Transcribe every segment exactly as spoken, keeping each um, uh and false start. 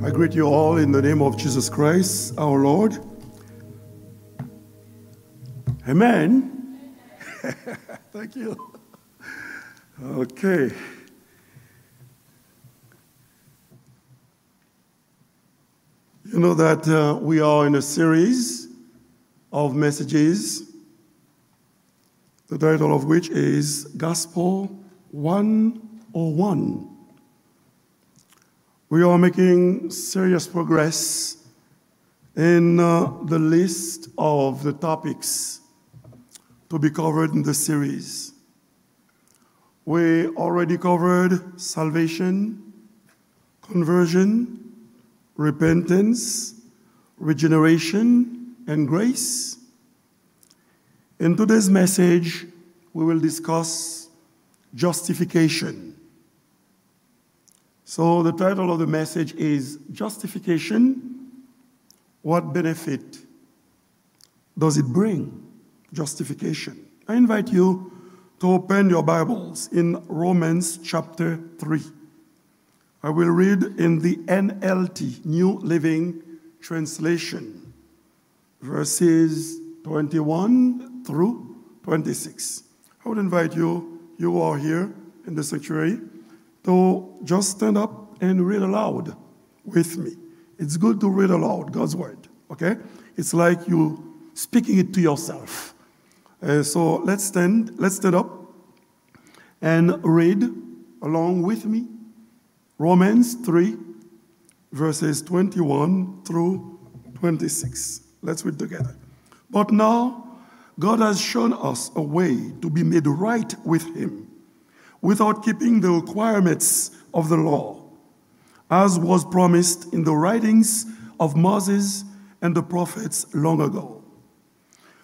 I greet you all in the name of Jesus Christ, our Lord. Amen. Thank you. Okay. You know that uh, we are in a series of messages, the title of which is Gospel one oh one. We are making serious progress in uh, the list of the topics to be covered in the series. We already covered salvation, conversion, repentance, regeneration, and grace. In today's message, we will discuss justification. So the title of the message is Justification. What benefit does it bring? Justification. I invite you to open your Bibles in Romans chapter three. I will read in the N L T, New Living Translation, verses twenty-one through twenty-six. I would invite you, you who are here in the sanctuary, to just stand up and read aloud with me. It's good to read aloud God's word, okay? It's like you speaking it to yourself. Uh, so let's stand, let's stand up and read along with me. Romans three, verses twenty-one through twenty-six. Let's read together. But now, God has shown us a way to be made right with Him without keeping the requirements of the law, as was promised in the writings of Moses and the prophets long ago.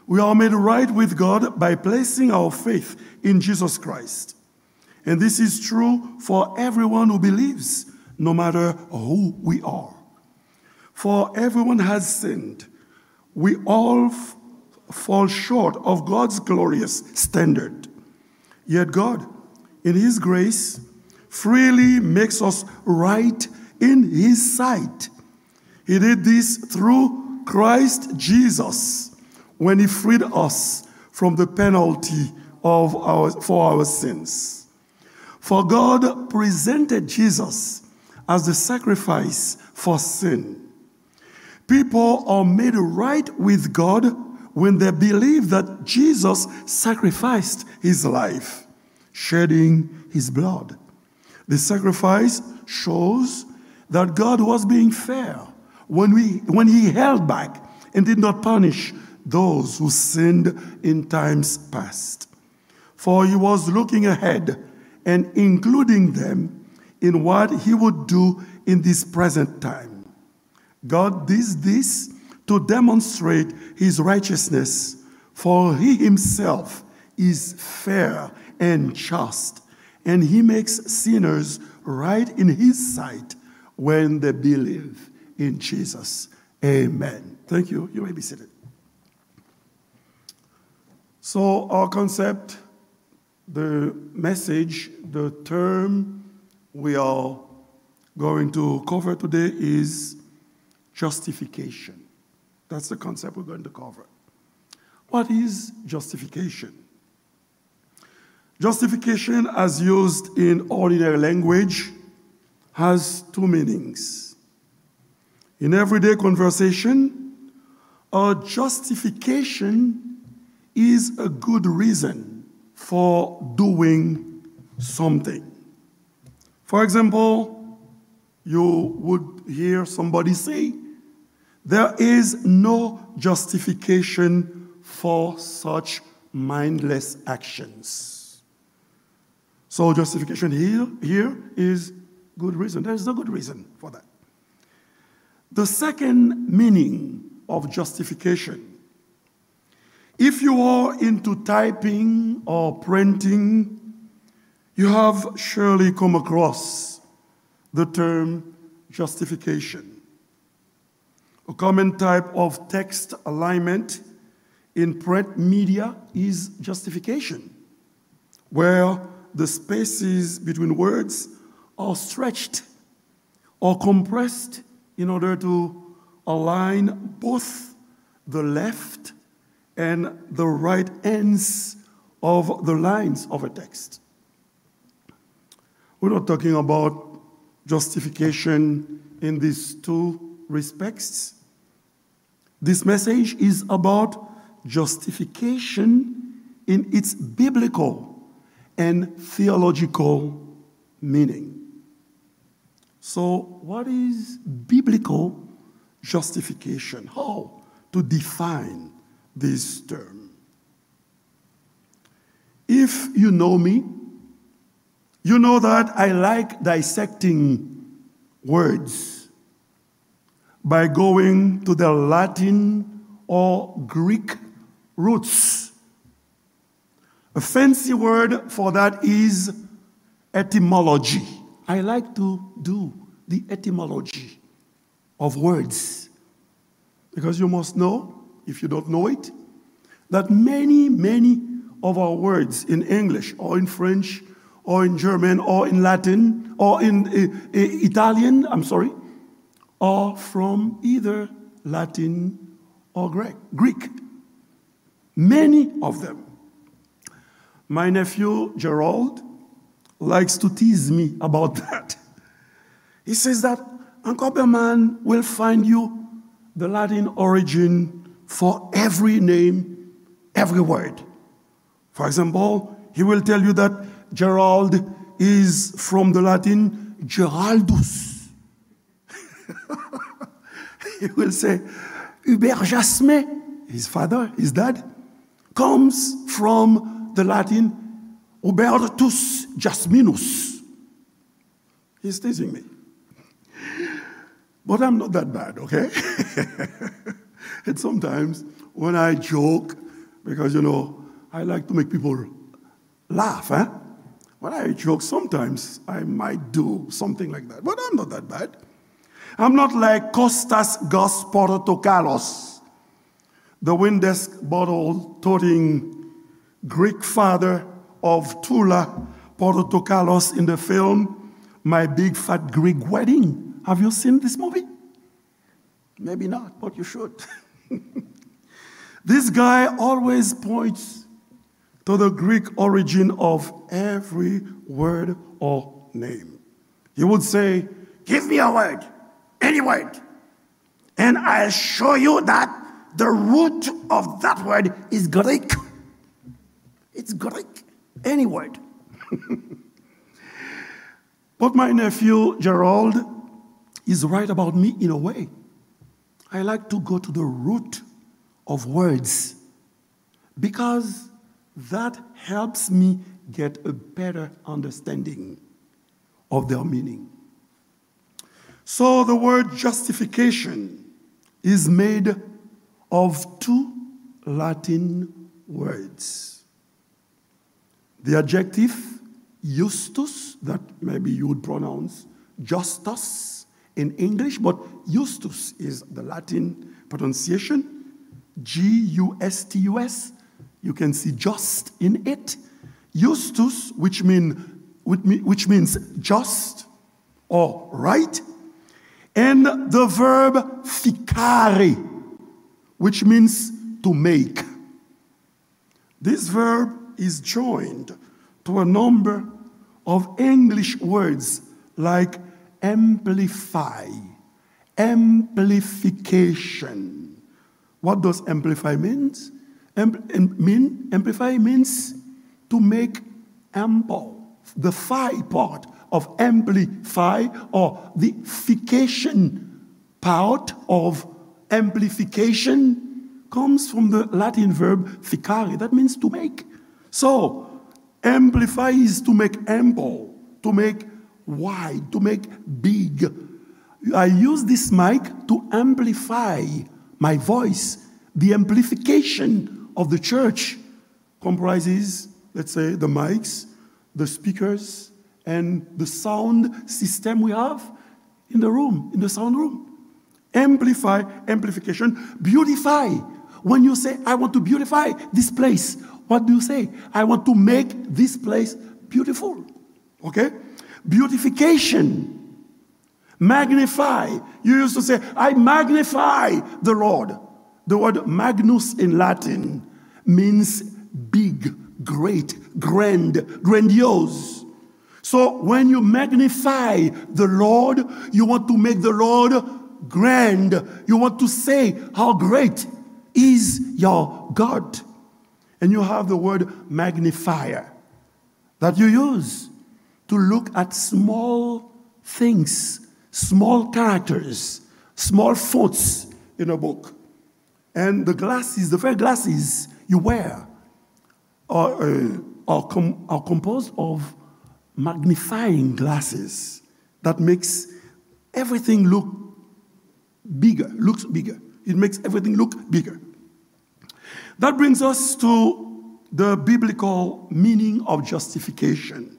We are made right with God by placing our faith in Jesus Christ. And this is true for everyone who believes, no matter who we are. For everyone has sinned. We all f- fall short of God's glorious standard. Yet God, in His grace, freely makes us right in His sight. He did this through Christ Jesus when He freed us from the penalty of our, for our sins. For God presented Jesus as the sacrifice for sin. People are made right with God when they believe that Jesus sacrificed His life, shedding His blood. The sacrifice shows that God was being fair when, we, when He held back and did not punish those who sinned in times past. For He was looking ahead and including them in what He would do in this present time. God did this to demonstrate His righteousness, for He Himself is fair and just, and He makes sinners right in His sight when they believe in Jesus. Amen. Thank you. You may be seated. So, our concept, the message, the term we are going to cover today is justification. That's the concept we're going to cover. What is justification? Justification, as used in ordinary language, has two meanings. In everyday conversation, a justification is a good reason for doing something. For example, you would hear somebody say, "There is no justification for such mindless actions." So justification here, here is good reason. There is no good reason for that. The second meaning of justification, if you are into typing or printing, you have surely come across the term justification. A common type of text alignment in print media is justification, where the spaces between words are stretched or compressed in order to align both the left and the right ends of the lines of a text. We're not talking about justification in these two respects. This message is about justification in its biblical and theological meaning. So, what is biblical justification? How to define this term? If you know me, you know that I like dissecting words by going to the Latin or Greek roots. A fancy word for that is etymology. I like to do the etymology of words. Because you must know, if you don't know it, that many, many of our words in English or in French or in German or in Latin or in uh, uh, Italian, I'm sorry, are from either Latin or Greek. Greek. Many of them. My nephew Gerald likes to tease me about that. He says that Uncle Berman will find you the Latin origin for every name, every word. For example, he will tell you that Gerald is from the Latin Geraldus. He will say, Hubert Jasmin, his father, his dad, comes from the Latin Hubertus Jasminus. He's teasing me. But I'm not that bad, okay? And sometimes when I joke, because you know, I like to make people laugh, eh? When I joke, sometimes I might do something like that. But I'm not that bad. I'm not like Kostas Gus Portokalos, the Windex bottle toting Greek father of Tula Portokalos in the film My Big Fat Greek Wedding. Have you seen this movie? Maybe not, but you should. This guy always points to the Greek origin of every word or name. He would say, Give me a word, any word, and I'll show you that the root of that word is Greek. It's Greek, any word. But my nephew Gerald is right about me in a way. I like to go to the root of words because that helps me get a better understanding of their meaning. So the word justification is made of two Latin words. The adjective justus, that maybe you would pronounce justus in English, but justus is the Latin pronunciation, G U S T U S. You can see just in it. Justus, which, mean, which means just or right, and the verb ficare, which means to make. This verb is joined to a number of English words like amplify, amplification. What does amplify means? Ampl- am- mean? Amplify means to make ample. The fi part of amplify or the fication part of amplification comes from the Latin verb ficare. That means to make. So, amplify is to make ample, to make wide, to make big. I use this mic to amplify my voice. The amplification of the church comprises, let's say, the mics, the speakers, and the sound system we have in the room, in the sound room. Amplify, amplification, beautify. When you say, I want to beautify this place, what do you say? I want to make this place beautiful. Okay? Beautification. Magnify. You used to say, "I magnify the Lord." The word magnus in Latin means big, great, grand, grandiose. So when you magnify the Lord, you want to make the Lord grand. You want to say how great is your God. And you have the word magnifier that you use to look at small things, small characters, small fonts in a book. And the glasses, the very glasses you wear are, uh, are, com- are composed of magnifying glasses that makes everything look bigger, looks bigger. It makes everything look bigger. That brings us to the biblical meaning of justification.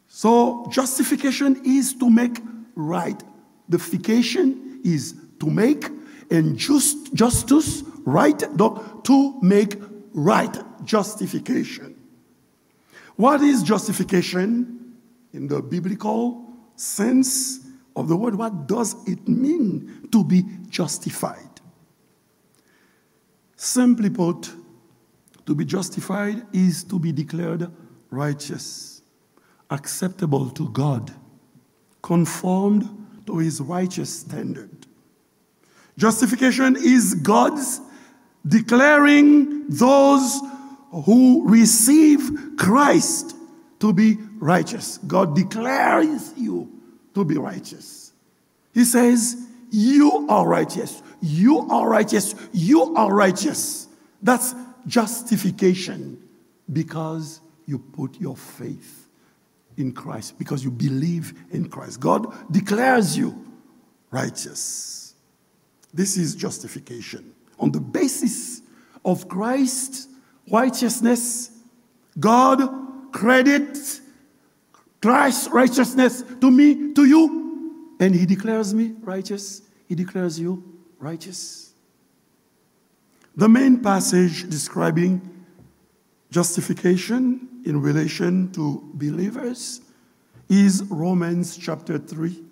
So, justification is to make right. The fication is to make, and just, justus, right, donc to make right, justification. What is justification in the biblical sense of the word? What does it mean to be justified? Simply put, to be justified is to be declared righteous, acceptable to God, conformed to his righteous standard. Justification is God's declaring those who receive Christ to be righteous. God declares you to be righteous. He says, "You are righteous. You are righteous. You are righteous." That's justification, because you put your faith in Christ, because you believe in Christ. God declares you righteous. This is justification. On the basis of Christ's righteousness, God credits Christ's righteousness to me, to you, and he declares me righteous. He declares you righteous. The main passage describing justification in relation to believers is Romans chapter three,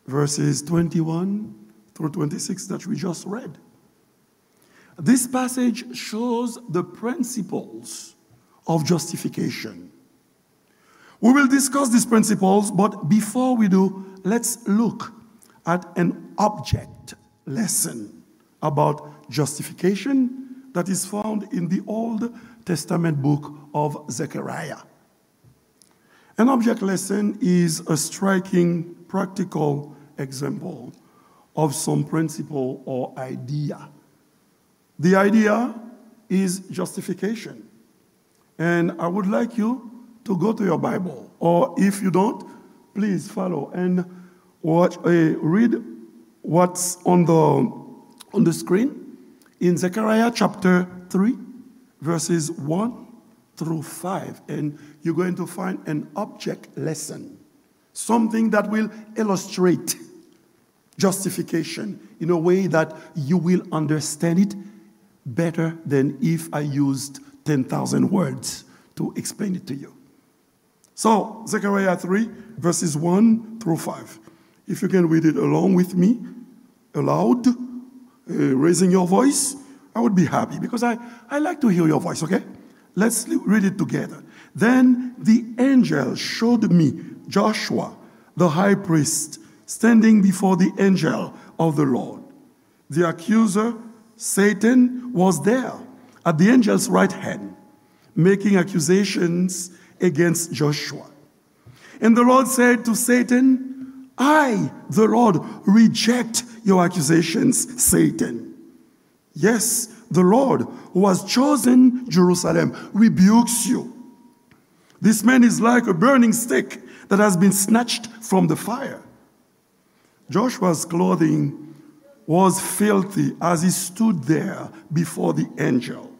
verses twenty-one through twenty-six that we just read. This passage shows the principles of justification. We will discuss these principles, but before we do, let's look at an object lesson about justification that is found in the Old Testament book of Zechariah. An object lesson is a striking practical example of some principle or idea. The idea is justification. And I would like you to go to your Bible, or if you don't, please follow and watch, uh, read what's on the, on the screen in Zechariah chapter three, verses one through five, and you're going to find an object lesson, something that will illustrate justification in a way that you will understand it better than if I used ten thousand words to explain it to you. So, Zechariah three, verses one through five. If you can read it along with me, aloud, uh, raising your voice, I would be happy because I, I like to hear your voice, okay? Let's li- read it together. Then the angel showed me Joshua, the high priest, standing before the angel of the Lord. The accuser, Satan, was there at the angel's right hand, making accusations against Joshua. And the Lord said to Satan, "I, the Lord, reject your accusations, Satan. Yes, the Lord, who has chosen Jerusalem, rebukes you. This man is like a burning stick that has been snatched from the fire." Joshua's clothing was filthy as he stood there before the angel.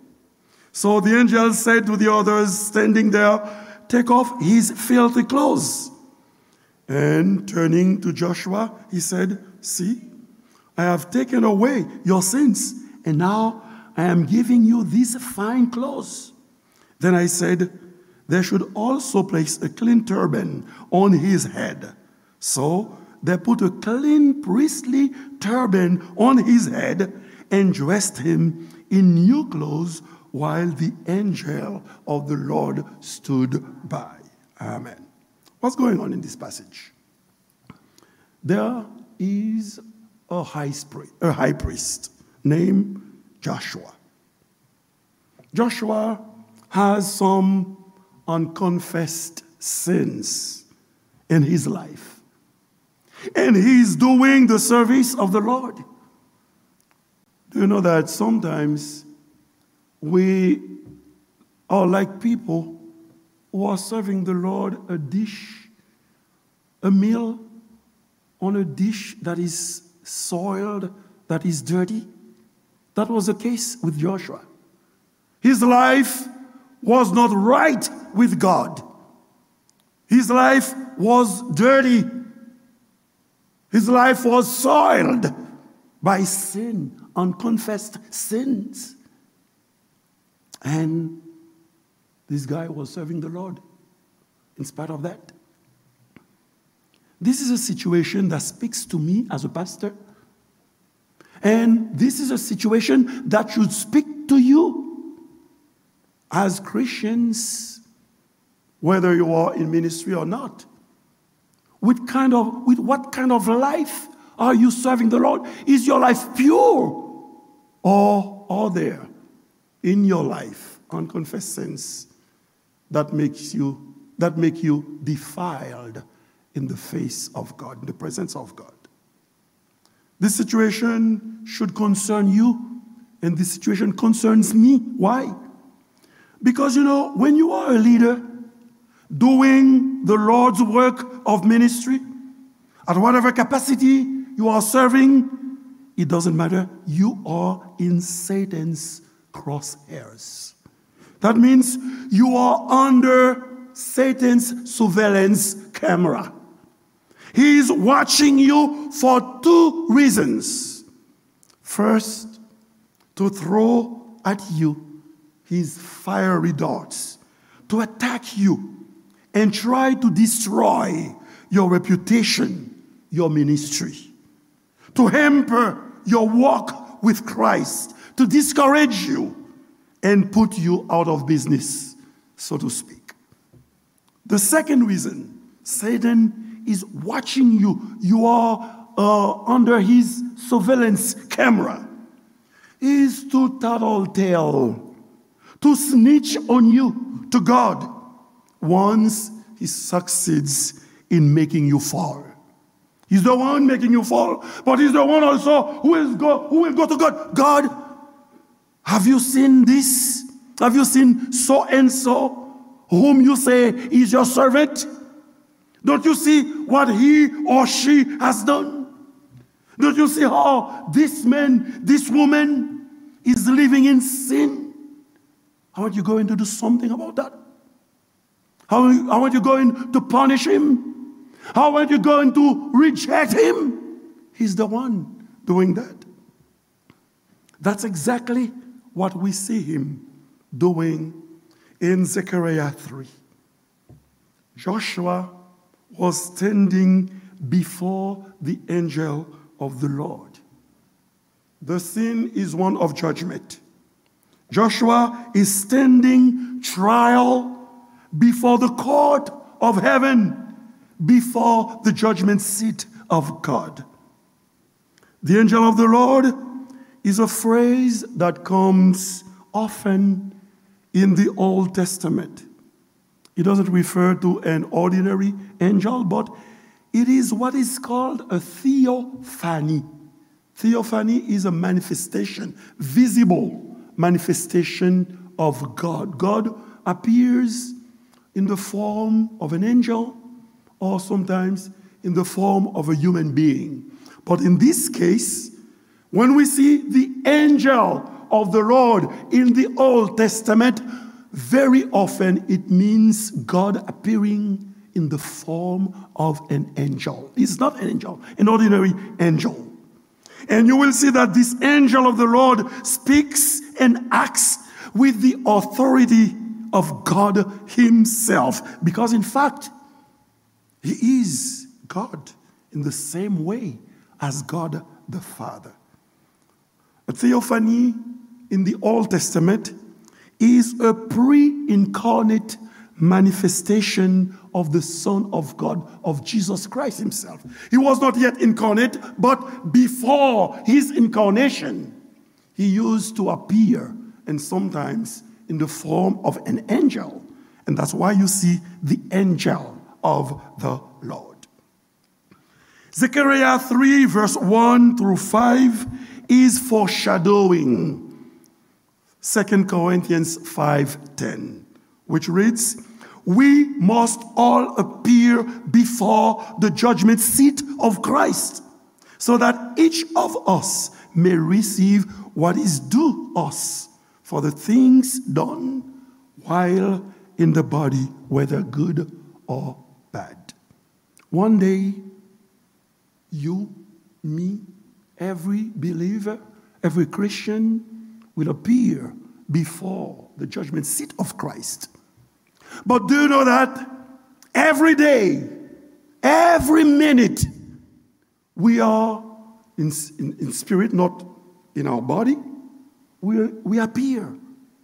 So the angel said to the others standing there, "Take off his filthy clothes." And turning to Joshua, he said, "See, I have taken away your sins, and now I am giving you these fine clothes." Then I said, "They should also place a clean turban on his head." So they put a clean priestly turban on his head and dressed him in new clothes while the angel of the Lord stood by. Amen. What's going on in this passage? There is a high, spri- a high priest named Joshua. Joshua has some unconfessed sins in his life. And he's doing the service of the Lord. Do you know that sometimes we are like people who are serving the Lord a dish, a meal on a dish that is soiled, that is dirty? That was the case with Joshua. His life was not right with God. His life was dirty. His life was soiled by sin, unconfessed sins. And this guy was serving the Lord in spite of that. This is a situation that speaks to me as a pastor. And this is a situation that should speak to you as Christians, whether you are in ministry or not. With kind of, with what kind of life are you serving the Lord? Is your life pure, or are there in your life unconfessed sins that makes you that make you defiled in the face of God, in the presence of God? This situation should concern you, and this situation concerns me. Why? Because, you know, when you are a leader doing the Lord's work of ministry, at whatever capacity you are serving, it doesn't matter. You are in Satan's crosshairs. That means you are under Satan's surveillance camera. He is watching you for two reasons. First, to throw at you his fiery darts, to attack you and try to destroy your reputation, your ministry, to hamper your walk with Christ, to discourage you and put you out of business, so to speak. The second reason, Satan is watching you. You are uh, under his surveillance camera. Is to tattletale, to snitch on you to God once he succeeds in making you fall. He's the one making you fall, but he's the one also who is go who will go to God. God, have you seen this? Have you seen so and so, whom you say is your servant? Don't you see what he or she has done? Don't you see how this man, this woman is living in sin? Aren't you going to do something about that? How, how aren't you going to punish him? How aren't you going to reject him? He's the one doing that. That's exactly what we see him doing in Zechariah three. Joshua was standing before the angel of the Lord. The scene is one of judgment. Joshua is standing trial before the court of heaven, before the judgment seat of God. The angel of the Lord is a phrase that comes often in the Old Testament. It doesn't refer to an ordinary angel, but it is what is called a theophany. Theophany is a manifestation, visible manifestation of God. God appears in the form of an angel or sometimes in the form of a human being. But in this case, when we see the angel of the Lord in the Old Testament, very often it means God appearing in the form of an angel. He's not an angel, an ordinary angel. And you will see that this angel of the Lord speaks and acts with the authority of God himself. Because in fact, he is God. in the same way as God the Father. A theophany in the Old Testament is a pre incarnate manifestation of the Son of God, of Jesus Christ himself. He was not yet incarnate, but before his incarnation, he used to appear, and sometimes in the form of an angel. And that's why you see the angel of the Lord. Zechariah three, verse one through five is foreshadowing Second Corinthians five ten, which reads, "We must all appear before the judgment seat of Christ, so that each of us may receive what is due us for the things done while in the body, whether good or bad." One day, you, me, every believer, every Christian will appear before the judgment seat of Christ. But do you know that every day, every minute, we are in, in, in spirit, not in our body, we, we appear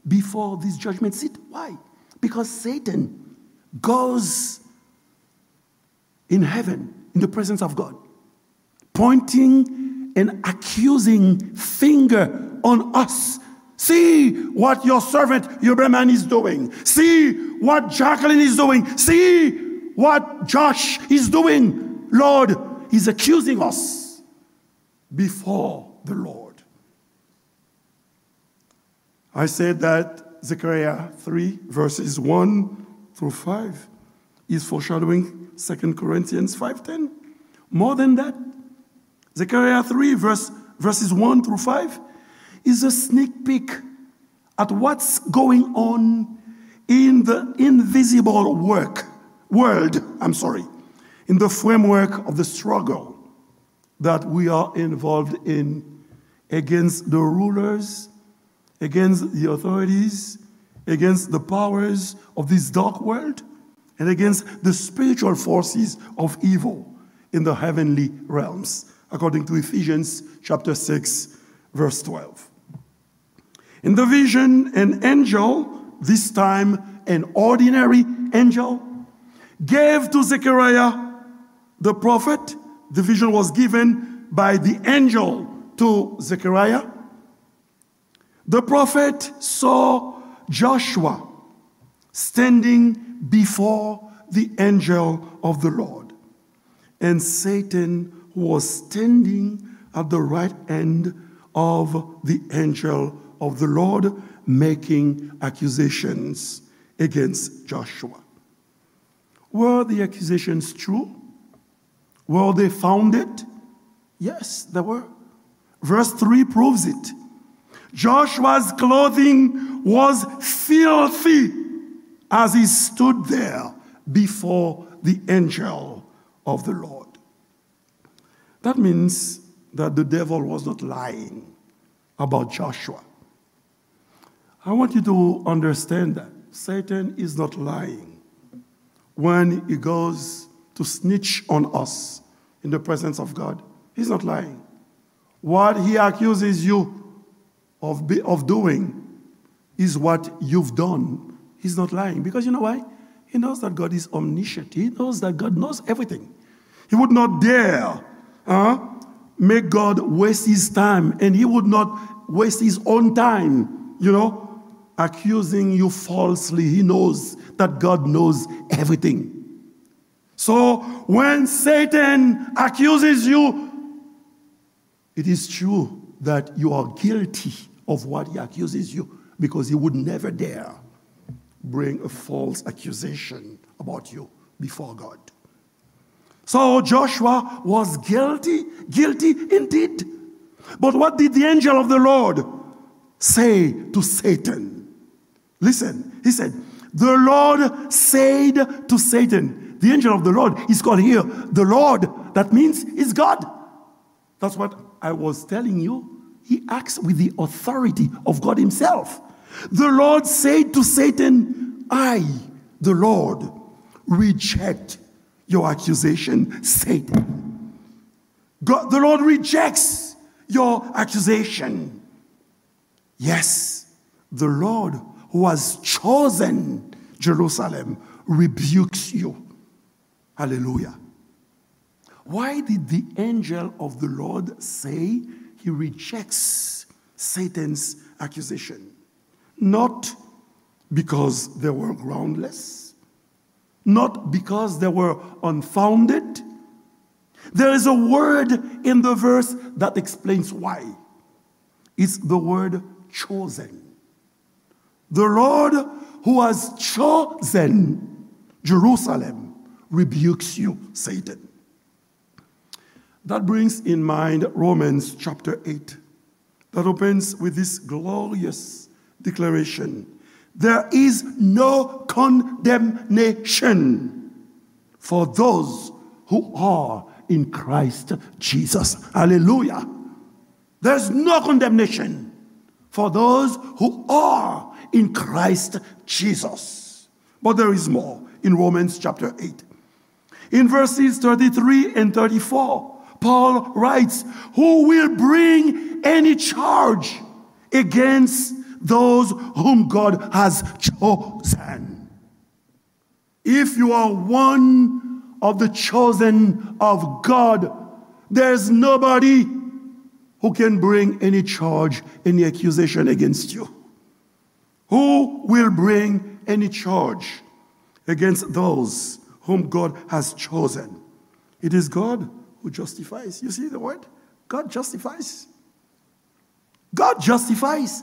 before this judgment seat. Why? Because Satan goes in heaven, in the presence of God, pointing an accusing finger on us. "See what your servant Huberman is doing. See what Jacqueline is doing. See what Josh is doing." Lord, he's accusing us before the Lord. I said that Zechariah three, verses one through five is foreshadowing Second Corinthians five ten. More than that, Zechariah three, verse, verses one through five is a sneak peek at what's going on in the invisible work, world, I'm sorry, in the framework of the struggle that we are involved in against the rulers, against the authorities, against the powers of this dark world, and against the spiritual forces of evil in the heavenly realms, according to Ephesians chapter six, verse twelve. In the vision, an angel, this time an ordinary angel, gave to Zechariah the prophet, the vision was given by the angel to Zechariah. The prophet saw Joshua standing before the angel of the Lord. And Satan was standing at the right hand of the angel of the Lord, making accusations against Joshua. Were the accusations true? Were they founded? Yes, they were. Verse three proves it. Joshua's clothing was filthy as he stood there before the angel of the Lord. That means that the devil was not lying about Joshua. I want you to understand that Satan is not lying when he goes to snitch on us in the presence of God. He's not lying. What he accuses you of, be, of doing is what you've done. He's not lying. Because you know why? He knows that God is omniscient. He knows that God knows everything. He would not dare, huh, make God waste his time, and he would not waste his own time, you know, accusing you falsely. He knows that God knows everything. So when Satan accuses you, it is true that you are guilty of what he accuses you, because he would never dare bring a false accusation about you before God. So Joshua was guilty, guilty indeed. But what did the angel of the Lord say to Satan? Listen, he said, "The Lord said to Satan." The angel of the Lord is called here the Lord. That means he's God. That's what I was telling you. He acts with the authority of God himself. The Lord said to Satan, "I, the Lord, reject your accusation, Satan." God, the Lord rejects your accusation. Yes, the Lord who has chosen Jerusalem rebukes you. Hallelujah. Why did the angel of the Lord say he rejects Satan's accusation? Not because they were groundless, not because they were unfounded. There is a word in the verse that explains why. It's the word chosen. The Lord who has chosen Jerusalem rebukes you, Satan. That brings in mind Romans chapter eight, that opens with this glorious declaration: "There is no condemnation for those who are in Christ Jesus." Hallelujah. There's no condemnation for those who are in Christ Jesus. But there is more in Romans chapter eight. In verses thirty-three and thirty-four, Paul writes, "Who will bring any charge against those whom God has chosen?" If you are one of the chosen of God, there's nobody who can bring any charge, any accusation against you. Who will bring any charge against those whom God has chosen? It is God who justifies. You see the word? God justifies. God justifies.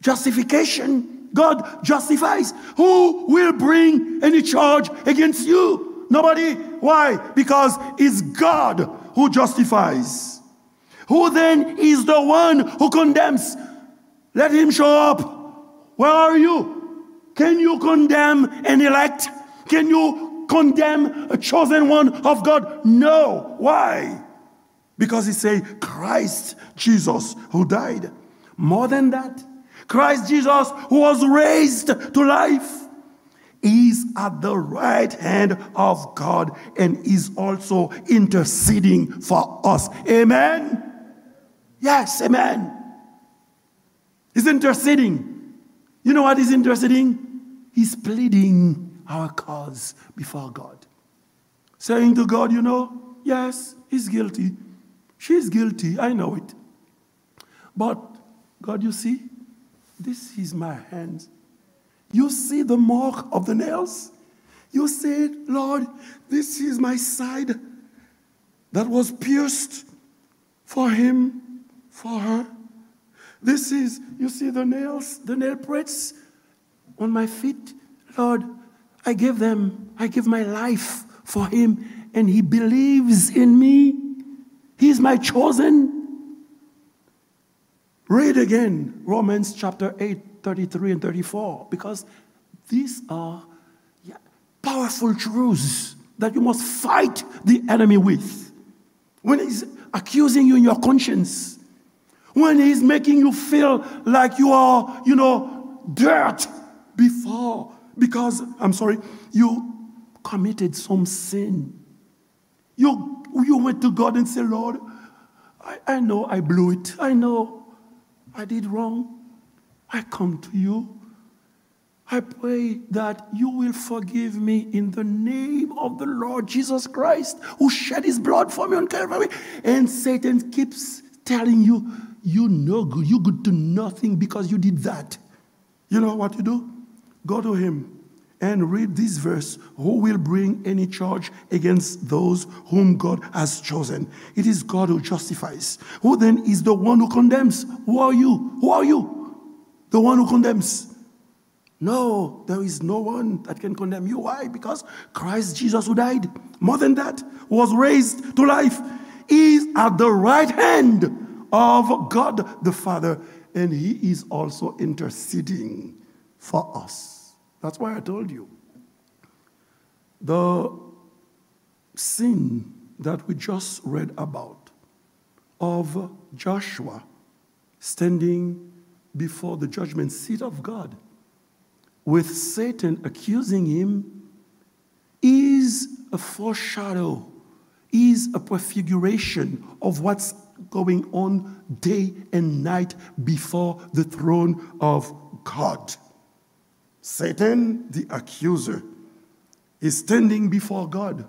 Justification. God justifies. Who will bring any charge against you? Nobody. Why? Because it's God who justifies. Who then is the one who condemns? Let him show up. Where are you? Can you condemn an elect? Can you condemn a chosen one of God? No. Why? Because he say, "Christ Jesus who died." More than that, Christ Jesus who was raised to life is at the right hand of God and is also interceding for us. Amen? Yes, amen. He's interceding. You know what he's interceding? He's pleading our cause before God. Saying to God, you know, yes, he's guilty. She's guilty. I know it. But, God, you see, this is my hand. You see the mark of the nails? You see it, Lord, this is my side that was pierced for him, for her. This is, you see the nails, the nail prints on my feet? Lord, I give them, I give my life for him, and he believes in me. He's my chosen. Read again Romans chapter eight, thirty-three and thirty-four, because these are, yeah, powerful truths that you must fight the enemy with. When he's accusing you in your conscience, when he's making you feel like you are, you know, dirt before, because, I'm sorry, you committed some sin. You, you went to God and said, Lord, I, I know I blew it. I know I did wrong. I come to you. I pray that you will forgive me in the name of the Lord Jesus Christ, who shed his blood for me on Calvary. And Satan keeps telling you, you no good, you good to nothing because you did that. You know what you do? Go to him and read this verse. Who will bring any charge against those whom God has chosen? It is God who justifies. Who then is the one who condemns? Who are you? Who are you? The one who condemns. No, there is no one that can condemn you. Why? Because Christ Jesus, who died, more than that, was raised to life, is at the right hand of God the Father, and he is also interceding for us. That's why I told you the scene that we just read about of Joshua standing before the judgment seat of God with Satan accusing him is a foreshadow, is a prefiguration of what's going on day and night before the throne of God. Satan, the accuser, is standing before God,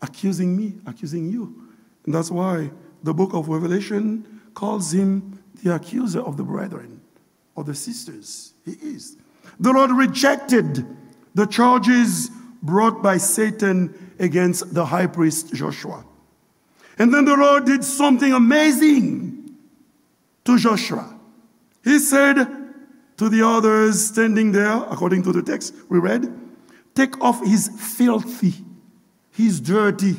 accusing me, accusing you. And that's why the book of Revelation calls him the accuser of the brethren, of the sisters. He is. The Lord rejected the charges brought by Satan against the high priest Joshua. And then the Lord did something amazing to Joshua. He said to the others standing there, according to the text we read, "Take off his filthy, his dirty,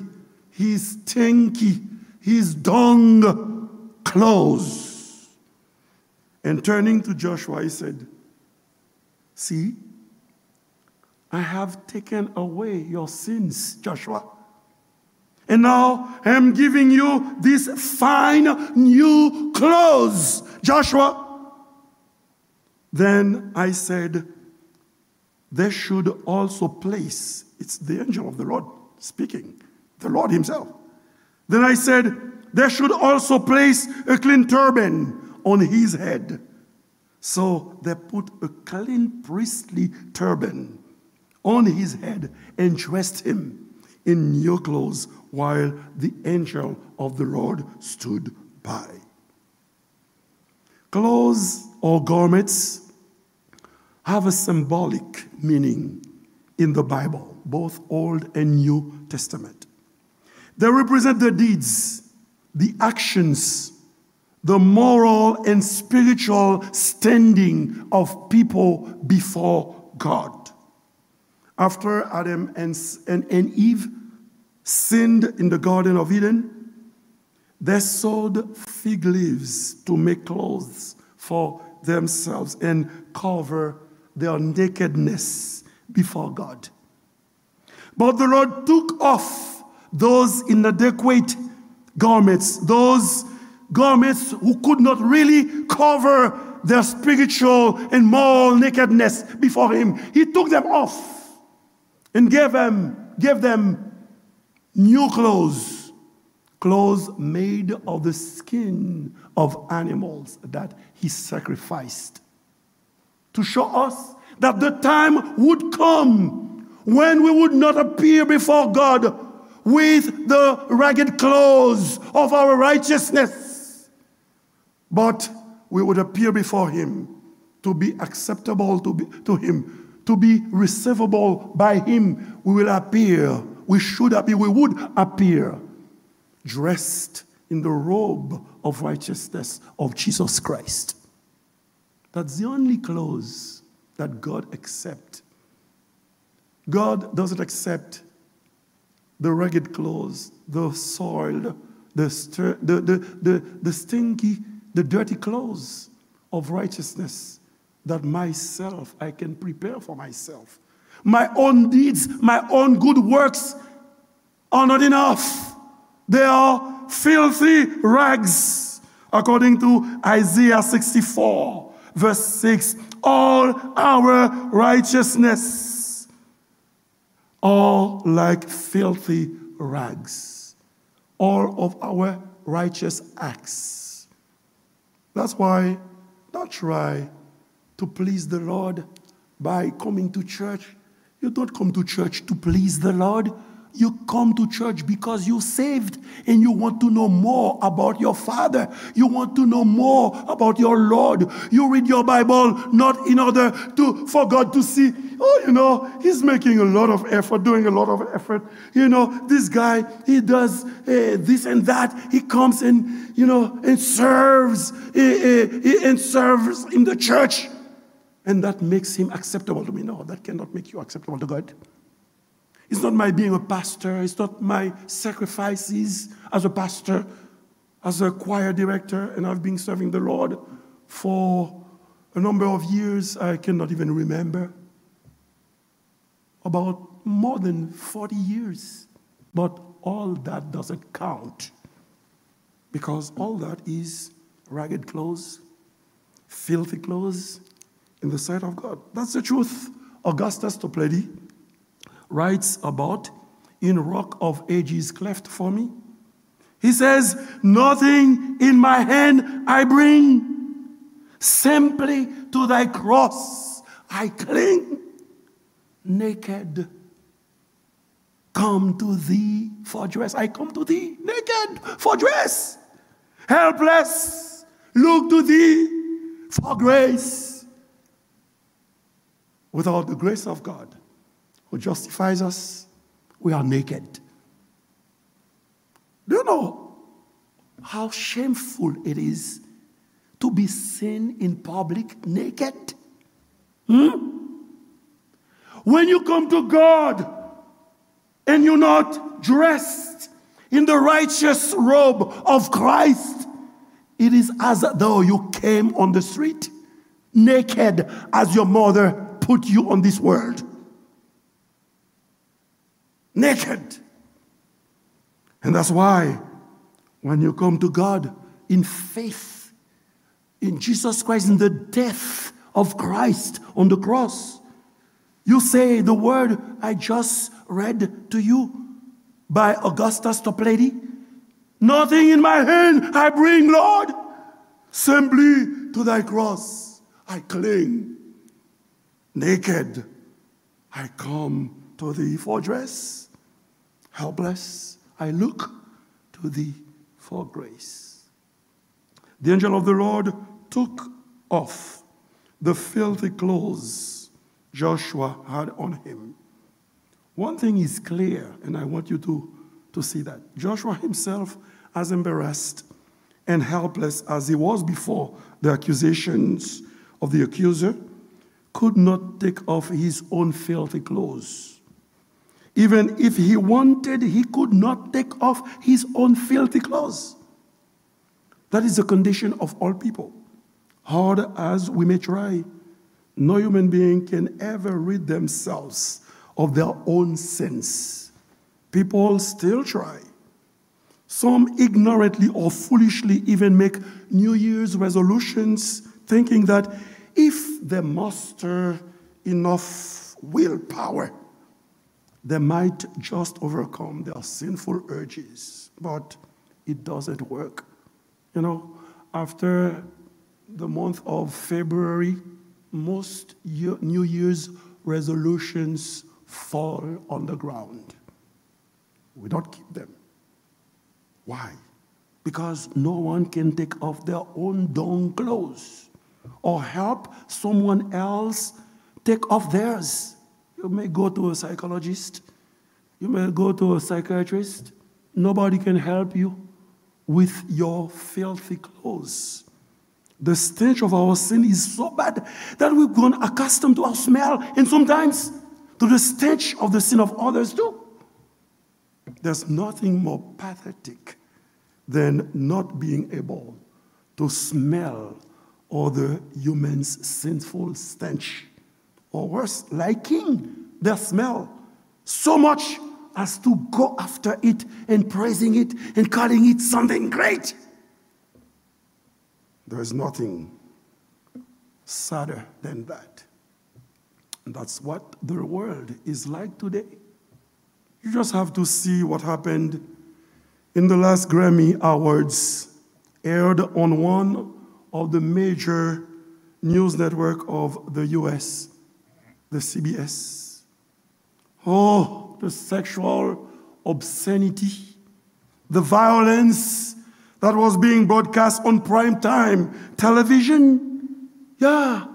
his stinky, his dung clothes." And turning to Joshua, he said, "See, I have taken away your sins, Joshua. And now I am giving you these fine new clothes, Joshua." Then I said, "They should also place," it's the angel of the Lord speaking, the Lord himself. Then I said, "They should also place a clean turban on his head." So they put a clean priestly turban on his head and dressed him in new clothes while the angel of the Lord stood by. Clothes or garments have a symbolic meaning in the Bible, both Old and New Testament. They represent the deeds, the actions, the moral and spiritual standing of people before God. After Adam and, and, and Eve sinned in the Garden of Eden, they sewed fig leaves to make clothes for themselves and cover their nakedness before God. But the Lord took off those inadequate garments, those garments who could not really cover their spiritual and moral nakedness before Him. He took them off and gave them, gave them new clothes, clothes made of the skin of animals that He sacrificed, to show us that the time would come when we would not appear before God with the ragged clothes of our righteousness, but we would appear before Him to be acceptable to, be, to Him, to be receivable by Him. We will appear, we should appear, we would appear dressed in the robe of righteousness of Jesus Christ. That's the only clothes that God accept. God doesn't accept the ragged clothes, the soiled, the, stir, the, the, the, the stinky, the dirty clothes of righteousness that myself, I can prepare for myself. My own deeds, my own good works are not enough. They are filthy rags, according to Isaiah sixty-four, verse six. All our righteousness are like filthy rags. All of our righteous acts. That's why don't try to please the Lord by coming to church. You don't come to church to please the Lord. You come to church because you're saved and you want to know more about your Father. You want to know more about your Lord. You read your Bible not in order to, for God to see, "Oh, you know, he's making a lot of effort, doing a lot of effort. You know, this guy, he does, eh, this and that. He comes and, you know, and serves, eh, eh, eh, and serves in the church. And that makes him acceptable to me." No, that cannot make you acceptable to God. It's not my being a pastor. It's not my sacrifices as a pastor, as a choir director, and I've been serving the Lord for a number of years. I cannot even remember. About more than forty years. But all that doesn't count, because all that is ragged clothes, filthy clothes in the sight of God. That's the truth. Augustus Toplady writes about in Rock of Ages cleft for me. He says, "Nothing in my hand I bring, simply to thy cross I cling. Naked, come to thee for dress." I come to thee naked, for dress. Helpless, look to thee for grace. Without the grace of God, who justifies us, we are naked. Do you know how shameful it is to be seen in public naked? Hmm? When you come to God and you're not dressed in the righteous robe of Christ, it is as though you came on the street naked as your mother put you on this world. Naked. And that's why when you come to God in faith, in Jesus Christ, in the death of Christ on the cross, you say the word I just read to you by Augustus Toplady. "Nothing in my hand I bring, Lord. Simply to thy cross I cling. Naked I come to thee for dress. Helpless I look to thee for grace." The angel of the Lord took off the filthy clothes Joshua had on him. One thing is clear, and I want you to, to see that. Joshua himself, as embarrassed and helpless as he was before the accusations of the accuser, could not take off his own filthy clothes. Even if he wanted, he could not take off his own filthy clothes. That is the condition of all people. Hard as we may try, no human being can ever rid themselves of their own sins. People still try. Some ignorantly or foolishly even make New Year's resolutions, thinking that if they muster enough willpower, they might just overcome their sinful urges. But it doesn't work. You know, after the month of February, most New Year's resolutions fall on the ground. We don't keep them. Why? Because no one can take off their own dung clothes or help someone else take off theirs. You may go to a psychologist, you may go to a psychiatrist. Nobody can help you with your filthy clothes. The stench of our sin is so bad that we've grown accustomed to our smell and sometimes to the stench of the sin of others too. There's nothing more pathetic than not being able to smell other humans' sinful stench, or worse, liking their smell so much as to go after it and praising it and calling it something great. There is nothing sadder than that. And that's what the world is like today. You just have to see what happened in the last Grammy Awards, aired on one of the major news network of the U S, the C B S. Oh, the sexual obscenity, the violence that was being broadcast on prime time television. Yeah.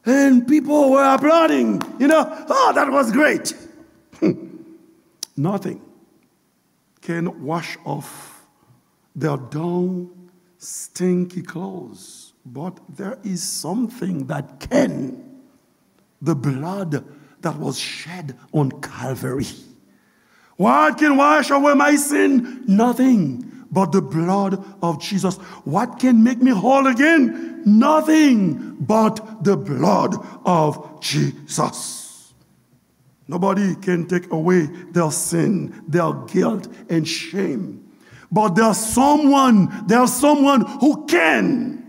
And people were applauding, you know, "Oh, that was great." Nothing can wash off their dung, stinky clothes, but there is something that can. The blood that was shed on Calvary. What can wash away my sin? Nothing but the blood of Jesus. What can make me whole again? Nothing but the blood of Jesus. Nobody can take away their sin, their guilt, and shame. But there's someone, there's someone who can.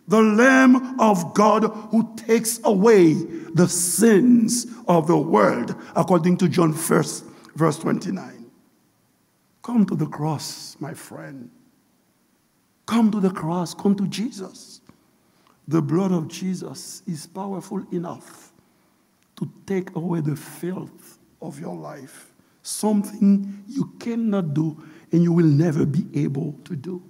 The Lamb of God who takes away the sins of the world, according to John first, verse twenty-nine. Come to the cross, my friend. Come to the cross. Come to Jesus. The blood of Jesus is powerful enough to take away the filth of your life, something you cannot do and you will never be able to do.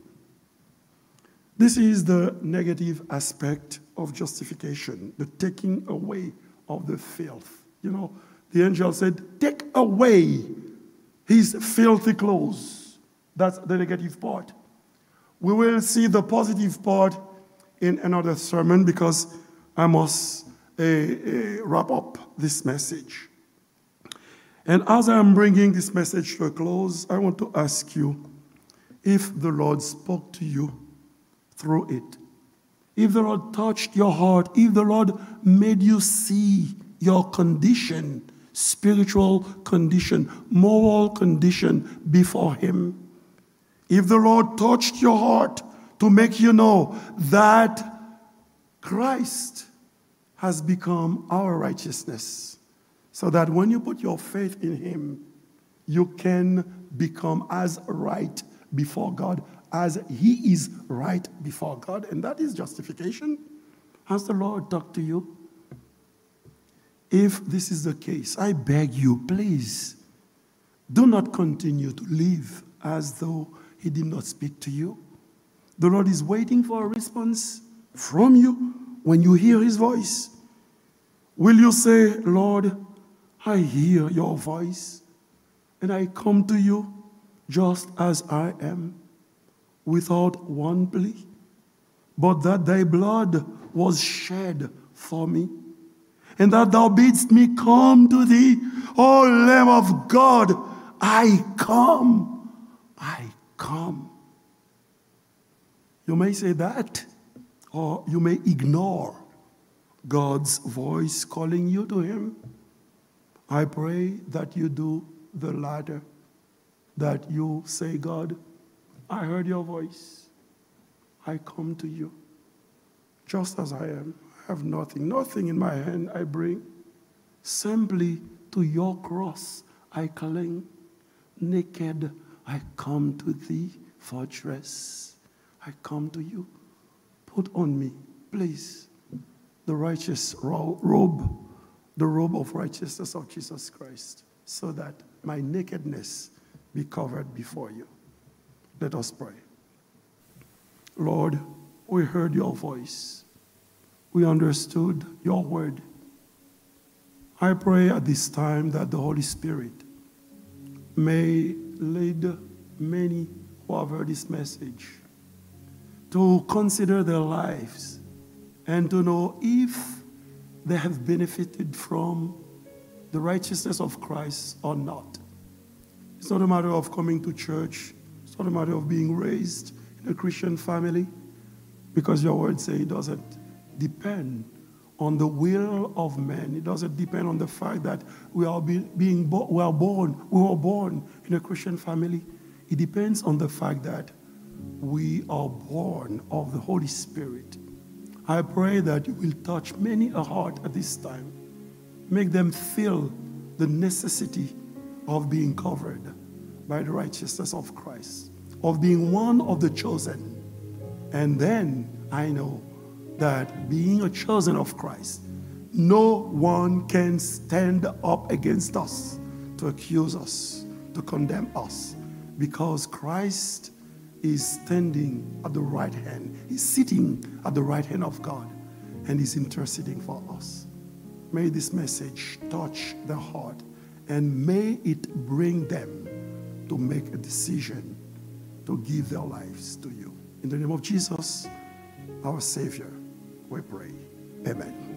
This is the negative aspect of justification, the taking away of the filth. You know, the angel said, "Take away his filthy clothes." That's the negative part. We will see the positive part in another sermon because I must uh, uh, wrap up this message. And as I am bringing this message to a close, I want to ask you if the Lord spoke to you through it. If the Lord touched your heart, if the Lord made you see your condition, spiritual condition, moral condition before Him, if the Lord touched your heart to make you know that Christ has become our righteousness, so that when you put your faith in Him, you can become as right before God as He is right before God. And that is justification. Has the Lord talked to you? If this is the case, I beg you, please, do not continue to live as though He did not speak to you. The Lord is waiting for a response from you when you hear His voice. Will you say, "Lord, I hear your voice, and I come to you just as I am, without one plea, but that thy blood was shed for me, and that thou bidst me come to thee, O Lamb of God, I come, I come." You may say that, or you may ignore God's voice calling you to Him. I pray that you do the latter, that you say, "God, I heard your voice. I come to you just as I am. I have nothing, nothing in my hand I bring. Simply to your cross I cling. Naked I come to thee, fortress. I come to you. Put on me, please, the righteous ro- robe, the robe of righteousness of Jesus Christ, so that my nakedness be covered before you." Let us pray. Lord, we heard your voice. We understood your word. I pray at this time that the Holy Spirit may lead many who have heard this message to consider their lives and to know if they have benefited from the righteousness of Christ or not. It's not a matter of coming to church. It's not a matter of being raised in a Christian family, because your word says it doesn't depend on the will of man. It doesn't depend on the fact that we are be- being bo- we are born, we were born in a Christian family. It depends on the fact that we are born of the Holy Spirit. I pray that you will touch many a heart at this time. Make them feel the necessity of being covered by the righteousness of Christ, of being one of the chosen. And then I know that being a chosen of Christ, no one can stand up against us to accuse us, to condemn us, because Christ is standing at the right hand. He's sitting at the right hand of God and is interceding for us. May this message touch their heart and may it bring them to make a decision to give their lives to you. In the name of Jesus, our Savior, we pray. Amen.